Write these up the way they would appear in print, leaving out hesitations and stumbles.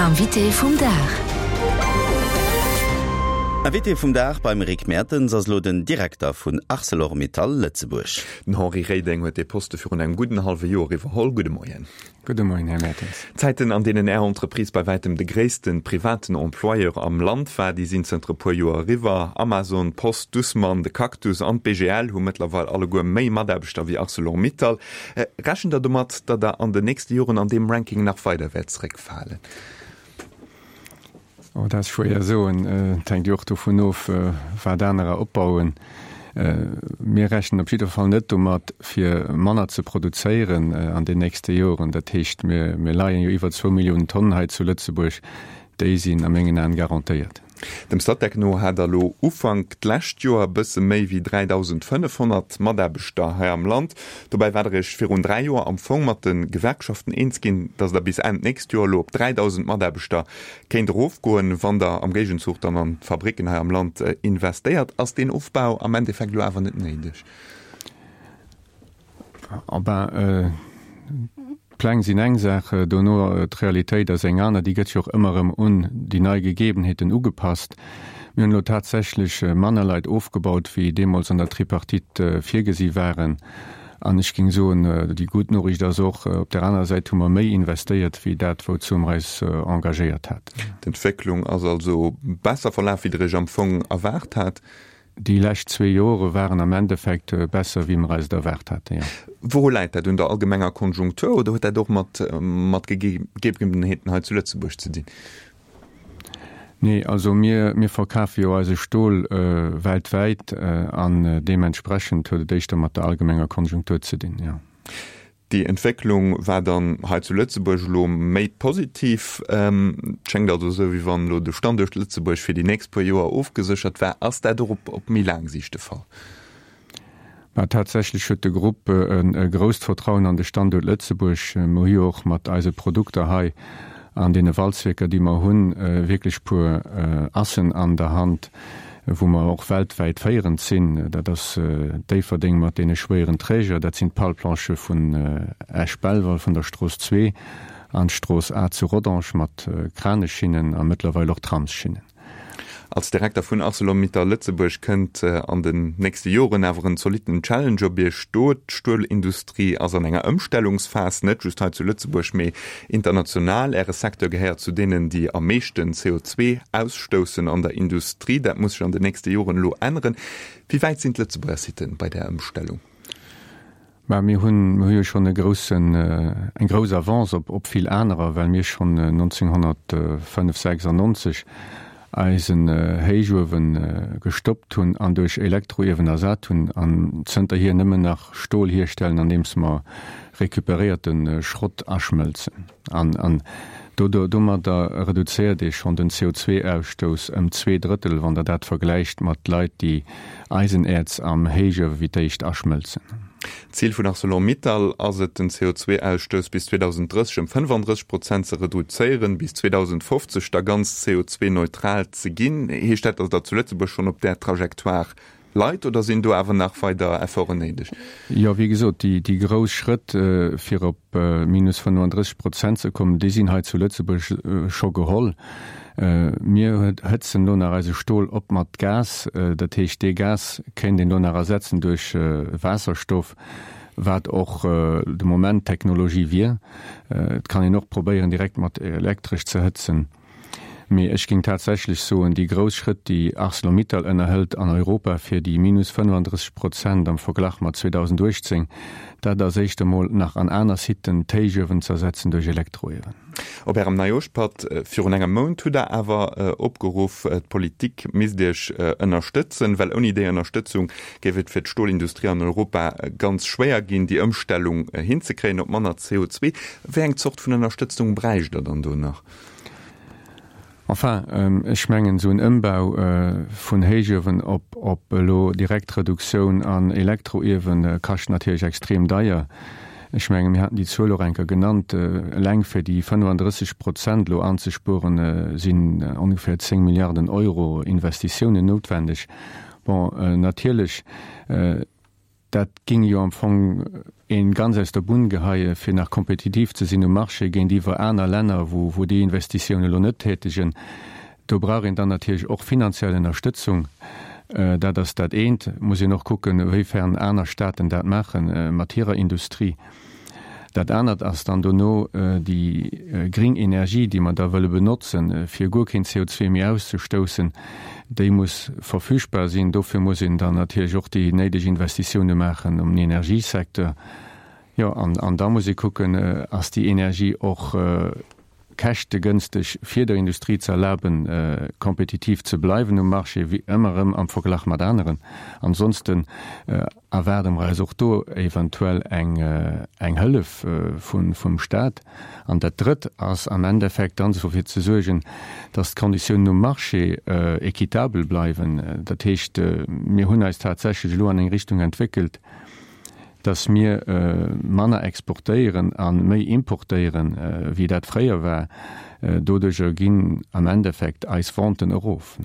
Invité vum Dag. Invité vum Dag beim Rick Mertens ass elo den Direkter vun Arcelor-Mittal Lëtzebuerg. Den Henri Reding huet dee Poste virun engem gudden hallwe Joer iwwerholl. Gudde Moien. Gudde Moien, Här Mertens. D'Zäiten, an deenen Är Entreprise bei wäitem de gréisste privaten Employeur am Land war, déi sinn zënter e puer Joer eriwwer. Amazon, d'Post, Dussmann, de Cactus an d'BGL hu mëttlerweil alleguer méi Mataarbechter wéi Arcelor-Mittal. Rechent Der domat, datt Der an den nächste Joren an deem Ranking nach weider wäert zeréckfalen? Oh, dat ass schwéier soen. Et hänkt jo och dovun of, wat anerer opbauen. Mir rechnen op jidder Fall net domat, fir manner ze produzéieren an den nächste Joren. Dat heescht, mir leien jo iwwer zwou Milliounen Tonnen hei zu Lëtzebuerg. Déi sinn a mengen Aen garantéiert. Dem Statec no hat der elo Ufank d'lescht Joer e bësse méi wéi 3.500 Mataarbechter hei am Land. Dobäi war der Iech virun 3 Joer am Fong mat de Gewerkschaften eens ginn, datt der bis Enn d'nächst Joer elo op 3.000 Mataarbechter kéint erofgoen, wann der am Géigenzuch dann an d'Fabricken hei am Land investéiert. Ass deen Ofbau am Endeffekt elo awer net néideg? Oh ben, d'Pläng sinn eng Saach, dono d'Realitéit ass eng aner. Déi gëtt jo och ëmmer erëm un déi nei Gegebenheeten ugepasst. Mir hunn elo tatsächlech manner Leit ofgebaut, wéi deemools an der Tripartite virgesi waren. An ech géing soen, déi gutt Noriicht ass och, op där anerer Säit hu mer méi investéiert, wéi dat, wouzou mer eis engagéiert haten. D'Entwécklung ass also besser verlaf, wéi Der Iech am Fong erwaart hat. Déi lescht zwee Jore waren am Endeffekt besser, wéi mer eis et erwaart haten, jo. Wouru läit dat? Un der allgemenger Konjunktur oder huet dat och mat mat Gegebenheeten hei zu Lëtzebuerg ze dinn? Nee, also mir, mir verkafe jo eise Stol weltwäit an deementsprechend huet et éischter mat der allgemenger Konjunktur ze dinn, jo. Déi Entwécklung war dann hei zu Lëtzebuerg elo méi positiv. Et schéngt also esou, wéi wann elo de Standuert Lëtzebuerg fir déi nächst puer Joer ofgeséchert war. Ass dat och op méi laang Siicht de Fall? Mä tatsächlech huet de Grupp e grousst Vertrauen an de Standuert Lëtzebuerg. Mer hu jo och mat eise Produkter hei an deene Walzwierker, déi mer hunn, wierklech puer Assen an der Hand, wou mer och weltwäit féierend sinn. Dat ass Déifferdeng mat deene schwéieren Träger, dat sinn d'Palplanchë vun Esch-Belval, vun der Strooss 2 an d'Strooss A zu Rodange mat Kraneschinnen a mëttlerweil och Tramsschinnen. Als Direkter vun Arcelor-Mittal Lëtzebuerg kënnt an den nächste Joren awer en zolitten Challenge op Iech do. D'Stuelindustrie ass an enger Ëmstellungsphas, net just hei zu Lëtzebuerg, mee international. Äre Secteur gehéiert zu deenen, déi am meeschten CO2 ausstoussen an der Industrie. Dat muss sech an den nächste Joren elo änneren. Wéi wäit sinn d'Lëtzebuerger Sitten bei där Ëmstellung? Mä mir hunn, mir hu jo schonn e groussen, eng grouss Avance op, op vill anerer, well mir schonn 1995, 96 eisen Héichuewe gestoppt hunn an duerch Elektroiewen ersat hunn an zënterhier nëmmen nach Stol hierstellen, andeems mer recuperéierte Schrott aschmëlzen. An, an do, do, domadder reduzéiert ee schonn den CO2-Ausstouss ëm zweedrëttel, wann Der dat vergläicht mat Leit, déi Eisenäerz am Héichuewe wéi d'éischt aschmëlzen. D'Zil vun Arcelor-Mittal ass et, den CO2-Ausstouss bis 2030 ëm 35 Prozent ze reduzéieren, bis 2050 da ganz CO2-neutral ze ginn. Heescht dat, datt Der zu Lëtzebuerg schonn op där Trajectoire leit oder sinn do awer nach weider Efforten néideg? Jo, wéi gesot, déi grouss Schrëtt, fir op minus 35 Prozent ze kommen, déi sinn hei zu Lëtzebuerg scho geholl. Mir hëtzen elo nach eise Stol op mat Gas. Dat heescht, dee Gas kéint een elo nach ersetzen duerch Waasserstoff, wat och de Moment d'Technologie wier. Et kann een och probéieren, direkt mat Elektresch ze hëtzen. Mee ech géing tatsächlech soen, déi grouss Schrëtt, déi Arcelor-Mittal ënnerhëlt an Europa fir déi minus 35 Prozent am Verglach mat 2018, dat ass éischt emol nach an aner Siten d'Héichuewen z'ersetzen duerch Elektroiewen. Op Ärem Neijoschpatt virun engem Mount hutt Der awer opgeruff, d'Politik misst Iech ënnerstëtzen, well ouni déi Ënnerstëtzung géif et fir d'Stolindustrie an Europa ganz schwéier ginn, déi Ëmstellung hinzekréien op manner CO2. Wéi eng Zort vun Ënnerstëtzung bräicht Der dann do nach? Enfin, ech mengen, esou en Ëmbau vun Héichuewen op op elo direkt Reduktioun an Elektroiewen kascht natierlech extrem deier. Ech mengen, mir haten déi Zuel och eng Kéier genannt, eleng fir déi 35 Prozent elo anzespueren, sinn ongeféier 10 Milliarden Euro Investitiounen noutwendeg. Bon, natierlech, Dat géing jo am Fong. Een ganz aus der Bunn geheie fir nach kompetitiv ze sinn um Marché géintiwwer aner Länner, wou wou déi Investitioun elo net tätegen. Do brauch een dann natierlech och finanziell Ënnerstëtzung. Dat ass dat eent. Muss een och kucken, wéifern aner Staaten dat maache mat hirer Industrie. Dat anert ass dann dono déi gring Energie, déi mer da wëlle benotzen, fir guer keen CO2 méi auszestoussen, déi muss verfügbar sinn. Dofir muss een dann natierlech och déi néideg Investitioune maachen um Energiesecteur. Jo, an da muss ee kucken, ass déi Energie och käschtegënsteg fir der Industrie ze erlaben, kompetitiv ze bleiwen um Marché, wéi ëmmer erëm am Verglach mat aneren. Ansonsten erwaarde mer eis och do eventuell eng eng Hëllef vum Stat. An dat Drëtt ass am Endeffekt dann dofir ze suergen, dass d'Konditiounen um Marché équitabel bleiwen. Dat heescht, mir hunn eis tatsächlech elo an eng Richtung entwéckelt, dass mir manner exportéieren a méi importéieren, wéi dat fréier war. Doduerjer ginn am Endeffekt eis Venten erof.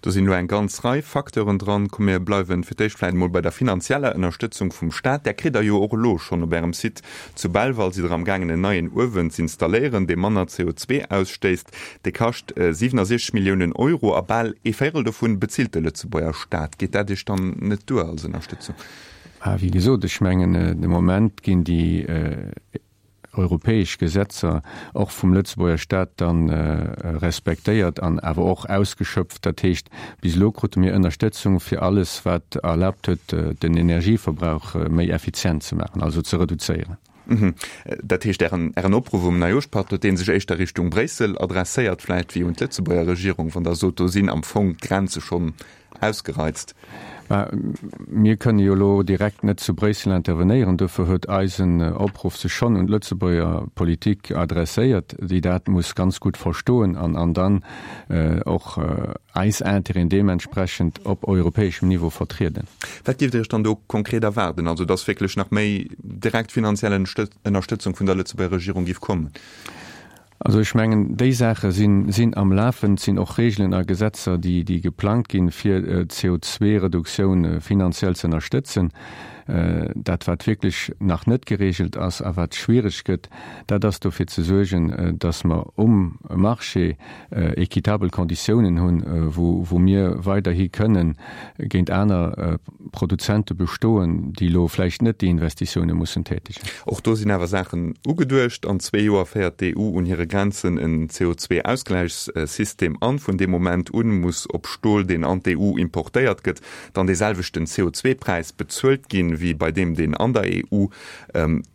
Do sinn elo eng ganz Rei Facteuren dran. Komm mir bleiwen fir d'éischt vläicht emol bei der finanzieller Ënnerstëtzung vum Staat. Där kritt Der jo och elo schonn. Op Ärem Site zu Belval sidd Der am gaangen en neien Uewen z'installéieren, dee manner CO2 ausstéisst. Dee kascht 67 Milliounen Euro a bal ee Véirel dovun bezilt de Lëtzebuerger Staat. Geet dat Iech dann net duer als Ënnerstëtzung? Wéi gesot, ech mengen, de Moment ginn déi europäesch Gesetzer och vum Lëtzebuerger Staat dann respektéiert an awer och ausgeschöpft. Dat heescht, bis elo krute mir Ënnerstëtzung fir alles, wat erlaabt huet, den Energieverbrauch méi effizient ze maachen, also ze reduzéieren. Dat heescht, Ären Opruff um Neijooschpatt, huet dee sech éischter Richtung Bréissel adresséiert vläicht wéi un d'Lëtzebuerger Regierung, wann Der sot, do sinn am Fong d'Grenze schonn ausgereizt. Mä mir kënne jo elo direkt net zu Bréissel intervenéieren. Dofir huet eisen Opruff sech schonn un d'Lëtzebuerger Politik adresséiert, déi dat muss ganz gutt verstoen an an dann och eis Intérêten deementsprechend op europäeschem Niveau vertrieden. Wat géift Dir Iech dann do konkret erwaarden? Also datt wierklech nach méi direkt finanziell Ënnerstëtzung vun der Lëtzebuerger Regierung géif kommen? Also ech mengen, déi Saache sinn, sinn am Lafen. Et sinn och Regeln a Gesetzer, déi, déi geplangt ginn, fir d'CO2-Reduktioun finanziell ze ënnerstëtzen. Dat, wat wierklech nach net geregelt ass a wat schwierig gëtt, dat ass dofir ze suergen, dass mer um Marché équitabel Konditiounen hunn, wou, wou mir weiderhi kënnen géint aner Produzente bestoen, déi elo vläicht net déi Investitioune mussen tätegen. Och do sinn awer Saachen ugeduecht. An zwee Joer féiert d'EU un hire Grenzen en CO2-Ausgläichssystem an. Vun deem Moment un muss op Stol, deen an d'EU importéiert gëtt, dann dee selwechten CO2-Präis bezuelt ginn, wéi bei deem, deen an der EU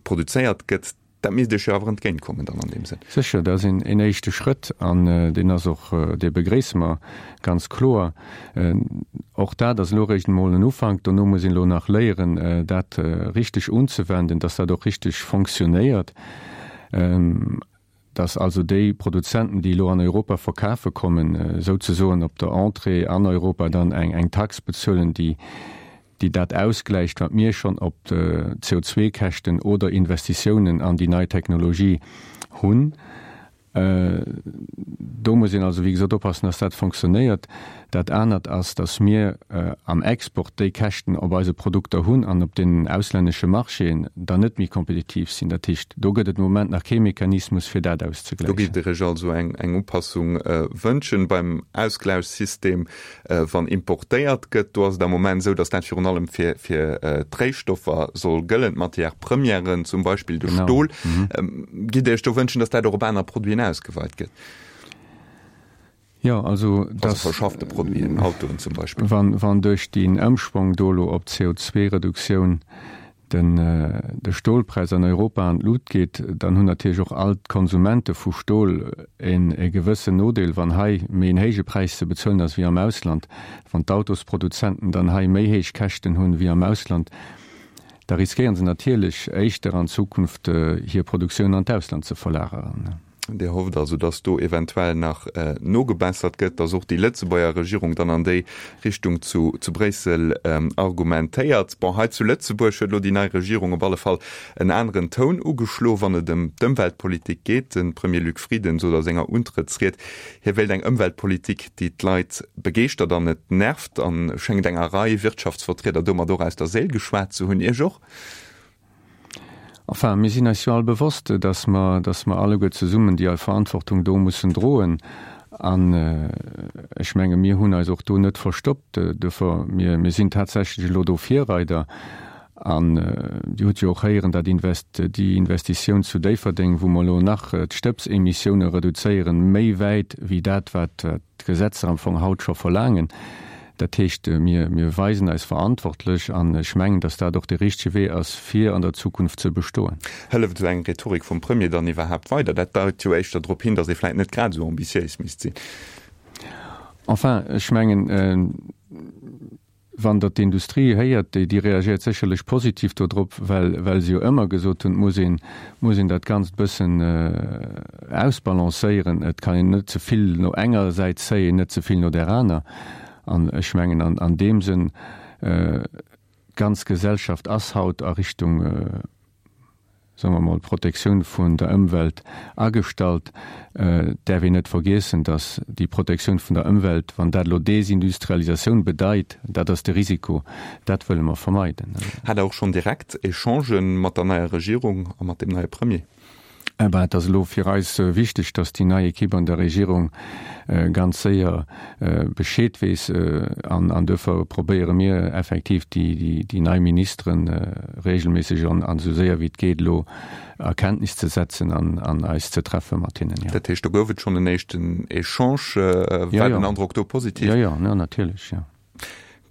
produzéiert gëtt. Dat misst Iech jo awer entgéintkommen dann an deem Sënn. Sécher, dat ass een éischte Schrëtt an deen ass och, dee begréisse mer ganz kloer. Och dat ass elo eréischt emol en Ufank. Dono muss een elo nach léieren, dat richteg unzewenden, dass dat och richteg fonctionnéiert, dass also déi Produzenten, déi elo an Europa verkafe kommen, souzesoen op der Entrée an Europa dann eng Tax bezuelen, déi déi dat ausgläicht, wat mir schonn op CO2-Käschten oder Investitiounen an déi nei Technologie hunn. Do muss een also, wéi gesot, oppassen, dass dat fonctionnéiert. Dat anert ass, dass mir am Export déi Käschten op eise Produkter hunn an op deenen auslännesche Marchéen dann net méi kompetitiv sinn. Dat heescht, do gëtt et de Moment nach kee Mechanismus, fir dat Do auszegläichen. géift Dir Iech also eng Upassung wënschen beim Ausgläichssystem. Wann importéiert gëtt, do ass et am Moment esou, datt dat virun allem fir fir d'Réistoffer soll gëllen, d'Matières premièren, zum Beispill de Stol. Gitt Dir Iech do wënschen, datt dat och op aner Produiten ausgeweit gëtt? Jo, also datt. Also verschaffte Produiten, Autoen zum Beispill. Wann wann duerch deen Ëmschwong do elo op d'CO2-Reduktioun den de Stolpräis an Europa an d'Lut geet, dann hunn natierlech och all d'Konsumente vu Stol en e gewëssen Nodeel, wann hei méi en héije Präis ze bezuelen ass wéi am Ausland. Wann d'Autosproduzenten dann hei méi héich Käschten hunn wéi am Ausland, da riskéieren se natierlech éischter an Zukunft hir Produktioun an d'Ausland ze verlageren. Dir hofft also, datt do eventuell nach nogebessert gëtt, datt och déi Lëtzebuerger Regierung dann an déi Richtung zu Bréissel argumentéiert. Bon, hei zu Lëtzebuerg huet elo déi nei Regierung op alle Fall en aneren Toun ugeschlo, wann et ëm d'Ëmweltpolitik geet. De Premier Luc Frieden sot a senger Untrëttsried, hie wéilt eng Ëmweltpolitik, déi d'Leit begeeschtert an net nervt, a schéngt enger Rei Wirtschaftsvertrieder domat och aus der Séil geschwat ze hunn. Iech och? Enfin, mir sinn eis jo all bewosst, dass mer, dass mer alleguer zesummen déi Verantwortung do mussen droen. An ech menge mir hunn eis och do net verstoppt. Duerfir, mir, mir sinn tatsächlech elo do Virreider. An Dir hutt jo och héieren, dat Invest, déi Investitioun zu Déifferdeng, wou mer elo nach d'Stëbsemissioune reduzéieren, méi wäit wéi dat, wat d'Gesetzer am Fong haut scho verlaangen. Dat heescht, mir, mir weisen eis verantwortlech an ech mengen, datt dat och de richtege Wee ass, fir an der Zukunft ze bestoen. Hëlleft esou eng Rhetorik vum Premier dann iwwerhaapt weider? Dat deit jo éischter drop hin, datt ee vläit net grad esou ambitiéis misst sinn. Enfin, ech mengen, Wann Der d'Industrie héiert, déi, déi reagiert sécherlech positiv dodrop, well, well se jo ëmmer gesot hunn, et muss een, muss een dat Ganzt e bëssen ausbalancéieren. Et kann een net ze vill no enger Säit zéien, net ze vill no där aner. An ech mengen an, an deem Sënn, d'ganz Gesellschaft ass haut a Richtung, soe mer mol, Protektioun vun der Ëmwelt agestallt. Et däerf een net vergiessen, datt déi Protektioun vun der Ëmwelt, wann dat elo Desindustrialisatioun bedeit, dat ass de Risiko, dat wëlle mer vermeiden. Hat Der och schonn direkt Echangen mat der neier Regierung a mat deem neie Premier? Eh ben, et ass elo fir eis wichteg, datt déi nei Equipe an der Regierung ganz séier Bescheed weess. An duerfir probéiere mir effektiv, déi nei Ministere regelméisseg an esou séier wéi et geet elo a Kenntnis ze setzen an eis ze treffe mat hinnen, jo. Dat heescht, do gouf et schonn en éischten Echange. War den Androck do positiv? Jo, jo, natierlech, jo.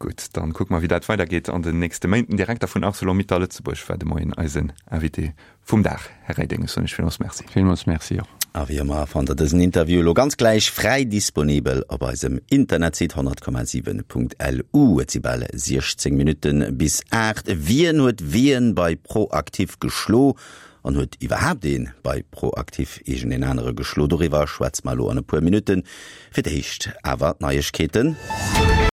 Gutt, dann kucke mer wéi dat weidergeet an den nächste Méint. Den Direkter vun Arcelor-Mittal Lëtzebuerg war de Moien eisen Invité vum Dag. Här Reding, ech soen Iech villmools Merci. Villmools Merci och. A wéi ëmmer fannt der dësen Interview elo ganz gläich fräi disponibel op eisem Internetsite 100,7.lu. Et si bal 16 Minutte bis 8. Wien huet wien bei ProActif geschlo? An huet iwwerhaapt ee bei ProActif iergendeen anere geschlo? Doriwwer schwätze mer elo an e puer Minutten. Fir d'éischt awer d'Neiegkeeten.